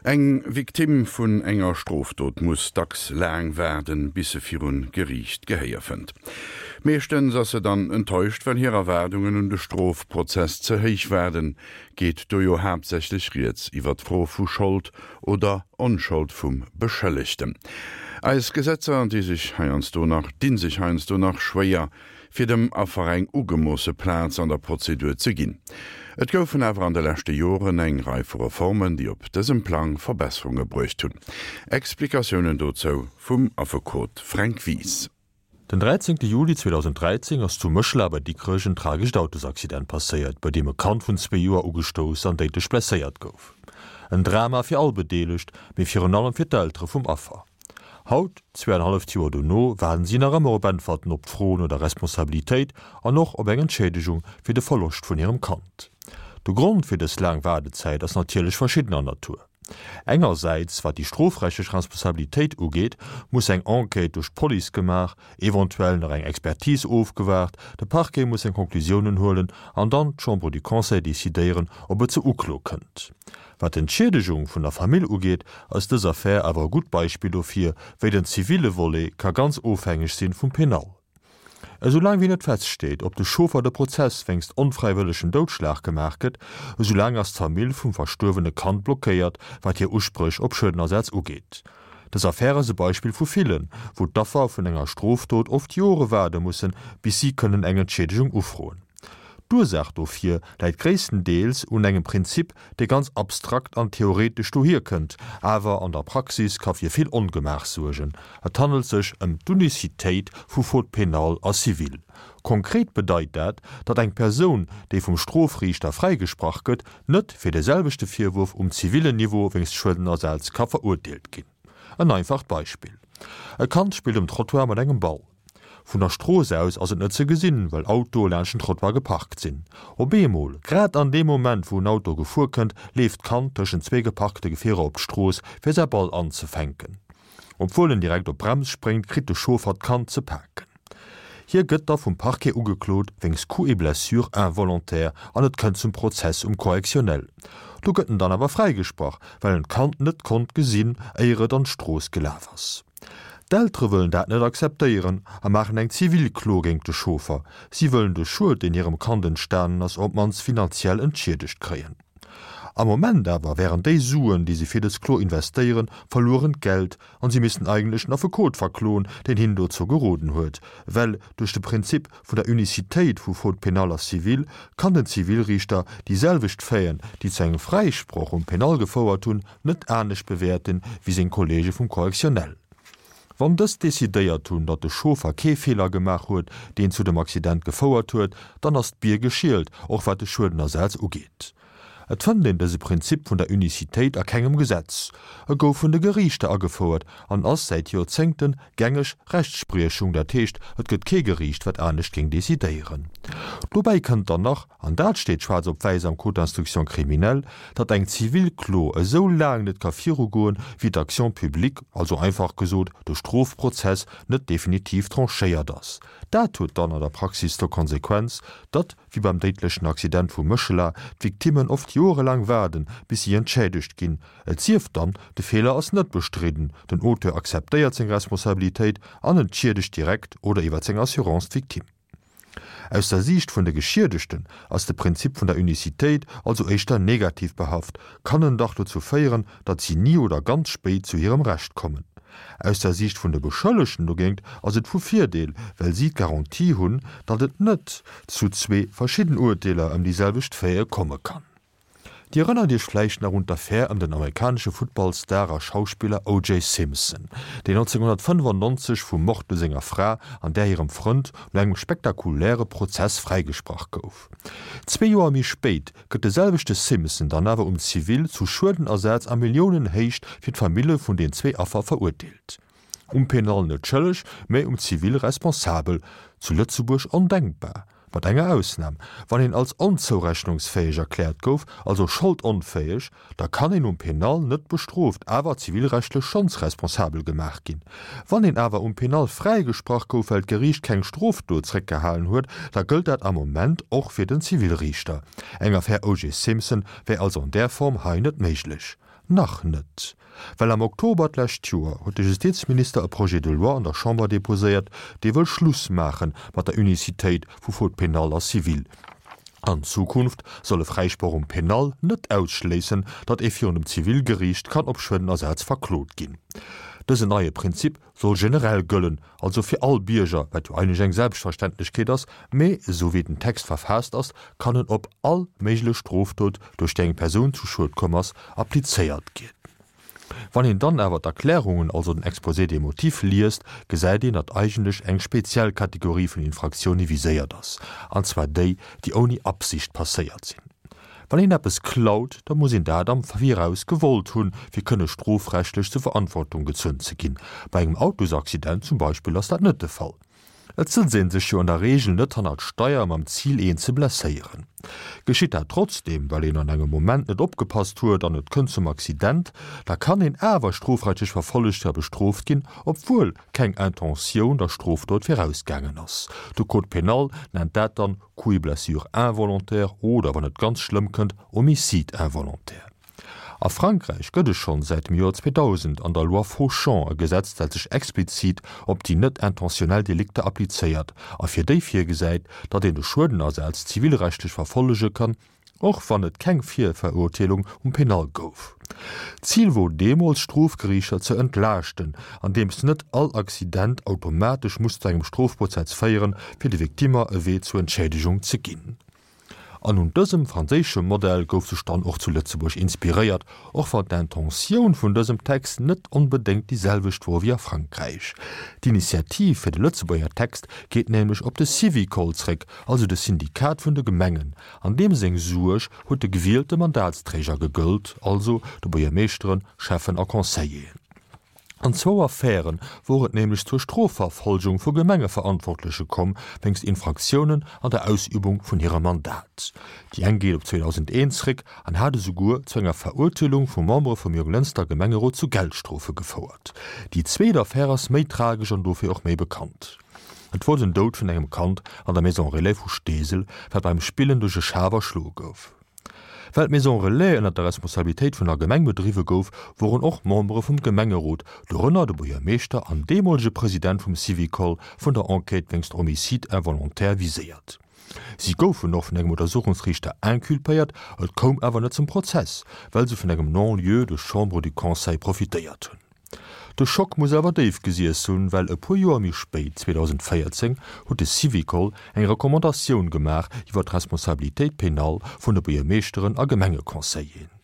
Eng Victime vun enger Strofdot muss dacks laang waarden, bis se virun Geriicht Gehéier fënnt. Meeschtens ass se dann enttäuscht, well hir Erwaardungen un de Strofprozess ze héich waarden. Geet do jo haaptsächlech rieds iwwer d'Fro vu Schold oder Onschold vum Beschëllegten. Eis Gesetzer di sech heiansdo nach dinn sech heiansdo nach schwéier, fir dem Affer eng ugemoosse Plaz an der Prozedur ze ginn. Et goufen awer an de leschte Joren eng Rei vu Reformen, déi op dësem Plang Verbesserunge bruecht hunn. Explikatiounen dozou vum Affekot Fränk Wies. Den 13 Juli 2013 ass zu Méchela bei Dikrech en tragescht Autosaccident passéiert, bei deem e Kand vun zwee Joer ugestouss an déidlech blesséiert gouf. En Drama fir all Bedeelegt, mee virun allem fir d'Eltere vum Affer. Haut, zweeanenhalleft Joer dono, waarden si nach ëmmer op Äntwerten op d'Fro no der Responsabilitéit an och op eng Entschiedegung fir de Verloscht vun hirem Kand. De Grond fir dës laang Waardezäit ass natierlech verschiddener Natur. Engersäits, wat déi strofrechtlech Responsabilitéit ugeet, muss eng Enquête duerch d'Police gemaach, eventuell nach eng Expertise ofgewaart, de Parquet muss seng Conclusiounen huelen an dann d'Chambre du Conseil decidéieren, ob et zur Uklo kënnt. Wat d'Entschiedegung vun der Famill ugeet, ass dës Affär awer e gutt Beispill dofir, wéi den zivile Volet ka ganz ofhängeg sinn vum Penal. Esou laang wéi net feststeet, ob de Chauffer de Prozess wéinst onfräiwëllegem Doudschlag gemaach gëtt, esou laang ass d'Famill vum verstuerwene Kand blockéiert, wat hir Uspréch op Schuedenersaz ugeet. Dës Affär ass e Beispill vu villen, wou d'Affer vun enger Strofdot oft Jore waarde mussen, bis si kënnen eng Entschiedegung ufroen. D'Ursaach dofir läit gréisstendeels un engem Prinzip, dee ganz abstrakt an theoretesch dohier kënnt, awer an der Praxis ka fir vill Ongemaach suergen. Et handelt sech ëm d'Unicitéit vu Faute pénale a civile. Konkret bedeit dat, datt eng Persoun, déi vum Strofriichter fräigesprach gëtt, net fir de selwechte Virwurf um zivillen Niveau wéinst Schuedenersaz ka verurteelt ginn. En einfacht Beispill, E Kand spillt um Trottoir mat engem Ball. Vun der Strooss aus ass et net ze gesinn, well Autoe laanscht den Trottoir geparkt sinn. Op eemol, grad an deem Moment wou en Auto gefuer kënnt, leeft d'Kand tëschent zwee geparkte Gefierer op d'Strooss, fir säi Ball anzefänken. Obwuel en direkt op d'Brems spréngt, kritt de Chauffer d'Kand ze paken. Hie gëtt da vum Parquet ugeklot wéinst Coups et blessures involontaires an et kënnt zum Prozess um Correctionnel. Do gëtt en dann awer fräigesprach, well en d'Kand net konnt gesinn, éier et an d'Strooss gelaf ass. D'Eltere wëllen dat net akzeptéieren a maachen eng Zivilklo géint de Chauffer. Si wëllen de Schued, deen hirem Kand entstanen ass, op d'mannst finanziell entschiedegt kréien. Am Moment awer wären déi Suen, déi se fir dës Klo investéieren, verluerent Geld an si missten eigentlech den Affekot verkloen, deen hinnen dozou geroden huet. Well duerch de Prinzip vun der Unicitéit vu Faute pénale a civile kann den Zivilriichter déi selwecht Faiten, déi zu engem Fräisproch um Pénal gefouert hunn, net anescht bewäerten wéi seng Kollege vum Correctionnel. Wann dës decidéiert hunn, datt de Chauffer kee Feeler gemaach huet, deen zu dem Accident gefouert huet, dann ass d'Bier geschielt, och wat de Schuedenersaz ugeet. Et fënnt een dëse Prinzip vun der Unicitéit a kengem Gesetz. E gouf vun de Geriichter agefouert an ass säit Joerzéngte gängeg Rechtspriechung, dat heescht, et gëtt kee Geriicht, wat anescht géing decidéieren. Dobäi kënnt dann nach, An dat steet schwaarz op wäiss am Code d'instruction criminelle, datt eng zivil Klo esou laang net ka virugoen, wéi d'Action publique, also einfach gesot de Strofprozess, net definitiv tranchéiert ass. Dat huet dann an der Praxis zur Konsequenz, datt, wéi beim déidlechen Accident vu Méchela, d'Victimmen oft joerelaang waarden, bis si entschädegt ginn. Et sief dann, de Feeler ass net bestridden, den Auteur akzeptéiert seng Responsabilitéit an entschiedegt direkt oder iwwer seng Assurance d'Victime. Aus der Siicht vun de Geschiedegten ass de Prinzip vun der Unicitéit also éischter negativ behaft, kann en dach dozou féieren, datt si ni oder ganz spéit zu hirem Recht kommen. Aus der Siicht vun de Beschëllegten dogéint ass et vu Virdeel, well si d'Garantie hunn, datt et net zu zwee verschidden Urteeler ëm déi selwecht Faite komme kann. Dir erënnert Iech vläicht nach un d'Affär ëm den amerikanesche Footballstar a Schauspiller OJ. Simpson, deen 1995 vum Mord u senger Fra an där hirem Frënd no engem spektakuläre Prozess fräigesprach gouf. Zwee Joer méi spéit gëtt de selwechte Simpson dann awer um Zivil zu Schuedenersaz a Milliounenhéicht fir d'Famille vun den zwee Affer verurteelt. Um Penal net schëlleg, mä um Zivil responsabel. Zu Lëtzebuerg ondenkbar. Mat enger Ausnam, Wann een als onzourechnungsfäeg erkläert gouf, also scholdonfäeg, da kann een um Penal net bestrooft, awer zivilrechtlech schonns responsabel gemaach ginn. Wann een awer um Penal fräigesprach gouf, well d'Geriicht keng Strofdot zréckgehalen huet, da gëllt dat am Moment och fir den Zivilriichter. Eng Affär O.J. Simpson wär also an där Form hei net méiglech. Nach net. Well am Oktober d'lescht Joer huet de Justizminister e Projet de loi an der Chamber deposéiert, dee wëll Schluss maache mat der Unicitéit vu Faute pénale a civile. An Zukunft soll e Fräisproch um Penal net ausschléissen, datt ee virun dem Zivilgeriicht kann op Schuedenersaz verklot ginn. Dësen neie Prinzip soll generell gëllen, also fir all Bierger, wat jo eigentlech eng Selbstverständlechkeet ass, mee esou wéi den Text verfaasst ass, kann en op all méiglech Strofdot, duerch déi eng Persoun zu Schued komm ass, applizéiert ginn. Wann een dann awer d'Erklärungen, also den Exposé des motifs, liest, gesäit een, datt eigentlech eng speziell Kategorie vun Infraktioune viséiert ass, an zwar déi, déi ouni Absicht passéiert sinn. Wann een eppes klaut, da muss een dat am Viraus gewollt hunn, fir kënne strofrechtlech zur Verantwortung gezunn ze ginn. Bei engem Autosaccident zum Beispill ass dat net de Fall. Et sëtzt ee sech jo an der Reegel net hannert d'Steier mam Zil een ze blesséieren. Geschitt dat trotzdeem, well een an engem Moment net opgepasst huet an et kënnt zum Accident, da kann een awer strofrechtlech verfollegt a bestrooft ginn, obwuel keng Intentioun der Strofdot virausgaangen ass. De Code pénal nennt dat dann Coups et blessures involontaires oder, wann et ganz schlëmm kënnt, Homicide involontaire. A Frankräich gëtt et schonn säit dem Joer 2000 an der Loi Fauchon e Gesetz, dat sech explizit op déi net intentionnel Delikter applizéiert a fir déi virgesäit, datt een de Schuedenersaz zivilrechtlech verfollege kann, och wann et keng Virverurteelung um Penal gouf. D'Zil wor deemools, d'Strofgeriichter ze entlaaschten, andeems net all Accident automatesch muss zu engem Strofprozess féieren, fir de Victimmer e Wee zur Entschädigung ze ginn. An un dësem franséische Modell gouf sech dann och zu Lëtzebuerg inspiréiert, och wann d'Intentioun vun dësem Text net onbedéngt déi selwecht wor wéi a Frankräich. D'Initiativ fir de Lëtzebuerger Text geet nämlech op de Syvicol zréck, also de Syndikat vun de Gemengen, an deem seng Suerg huet de gewielte Mandatsträger gegëllt, also de Buergermeeschteren, Schäffen a Conseilleren. An zwou Affäre wor et nämlech zur Strofverfolgung vu Gemengeverantwortleche komm, wéinst Infraktiounen an der Ausübung vun hirem Mandat. Déi eng geet op 2001 zréck an hat esouguer zu enger Verurteelung vu Membere vum Jonglënster Gemengerot zu Geldstrofe gefouert. Déi zweet Affär ass méi tragesch an dofir och méi bekannt. Et wor den Doud vun engem Kand an der Maison Relais vu Steesel, wat beim Spillen duerch e Schaf erschloe gouf. Well d'Maison Relais ënner der Responsabilitéit vun der Gemeng bedriwwe gouf, woren och Membere vum Gemengerot, dorënner de Buergermeeschter an deemolege President vum Syvicol, vun der Enquête wéinst Homicide involontaire viséiert. Si goufen och vun engem Untersuchungsriichter inculpéiert, et koum awer net zum Prozess, well se vun engem Non-lieu duerch d'Chambre du Conseil profitéiert hunn. De Schock muss awer déif gesiess hunn, well e puer Joer méi spéit, 2014, huet de Syvicol eng Recommandatioun gemaach iwwer d'Responsabilitéit pénale vun de Buergermeeschteren a Gemengeconseilleren.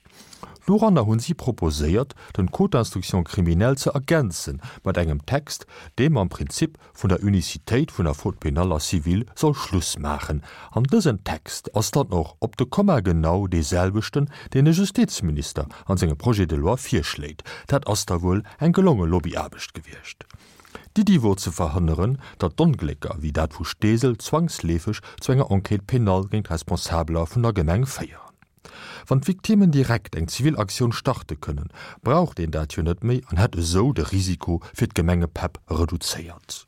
Doranner hunn si proposéiert, den Code d'instruction criminelle ze ergänze mat engem Text, dee mam Prinzip vun der Unicitéit vun der Faute pénale a civile soll Schluss maachen. An dësen Text ass dann och op de Komma genau dee selwechten, deen de Justizminister an sengem Projet de loi virschléit. Dat ass da wuel eng gelonge Lobbyaarbecht gewiescht. D'Iddi wor ze verhënneren, datt d'Onglécker wéi dat vu Steesel zwangsleefeg zu enger Enquête pénale géint Responsabeler vun der Gemeng féieren. Wann d'Victimmen direkt eng zivil Aktioun starte kënnen, braucht een dat jo net méi an hätt esou de Risiko fir d'Gemengepäpp reduzéiert.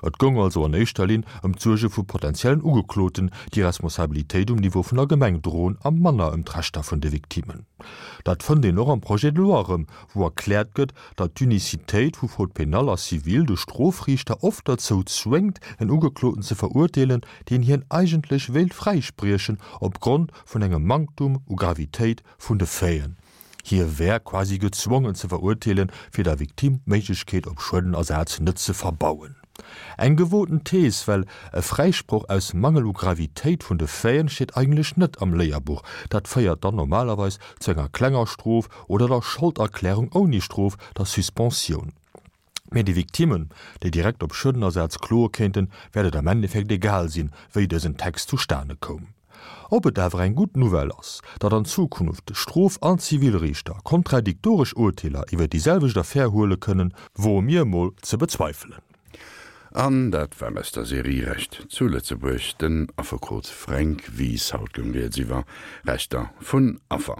Et goung also an éischter Linn ëm d'Suerge vu potentiellen Ugekloten, déi Responsabilitéit um Niveau vun der Gemeng droen, a manner ëm d'Rechter vun de Victimmen. Dat fënnt een och am Projet de loi erëm, wou erkläert gëtt, datt d'Unicitéit vu Faute pénale a civile de Strofriichter oft derzou zwéngt, en Ugekloten ze verurteelen, deen hien eigentlech wéilt fräispriechen opgrond vun engem Manktum u Gravitéit vun de Faiten. Hie wär quasi gezwongen ze verurteelen, fir der Victime d'Méiglechkeet op Schuedenersaz net ze verbauen. Eng gewoten Thees, well e Fräisproch aus Mangel u Gravitéit vun de Faiten steet eigentlech net am Léierbuch. Dat féiert dann normalerweis zu enger klenger Strof oder der Scholderklärung ouni Strof, der Suspensioun. Mee de Victimmen, déi direkt op Schuedenersaz kloe kéinten, wäert et am Endeffekt egal sinn, wéi dësen Text zustane koum. Ob et awer eng gutt Nouvelle ass, datt an Zukunft Strof an Zivilriichter kontradiktoresch Urteeler iwwer déi selwecht Affär huele kënnen, woe mir emol ze bezweifelen. An dat war aus der Serie Recht zu Lëtzebuerg, den Affekot Fränk Wies. Haut goung rieds iwwer Rechter vun Affer.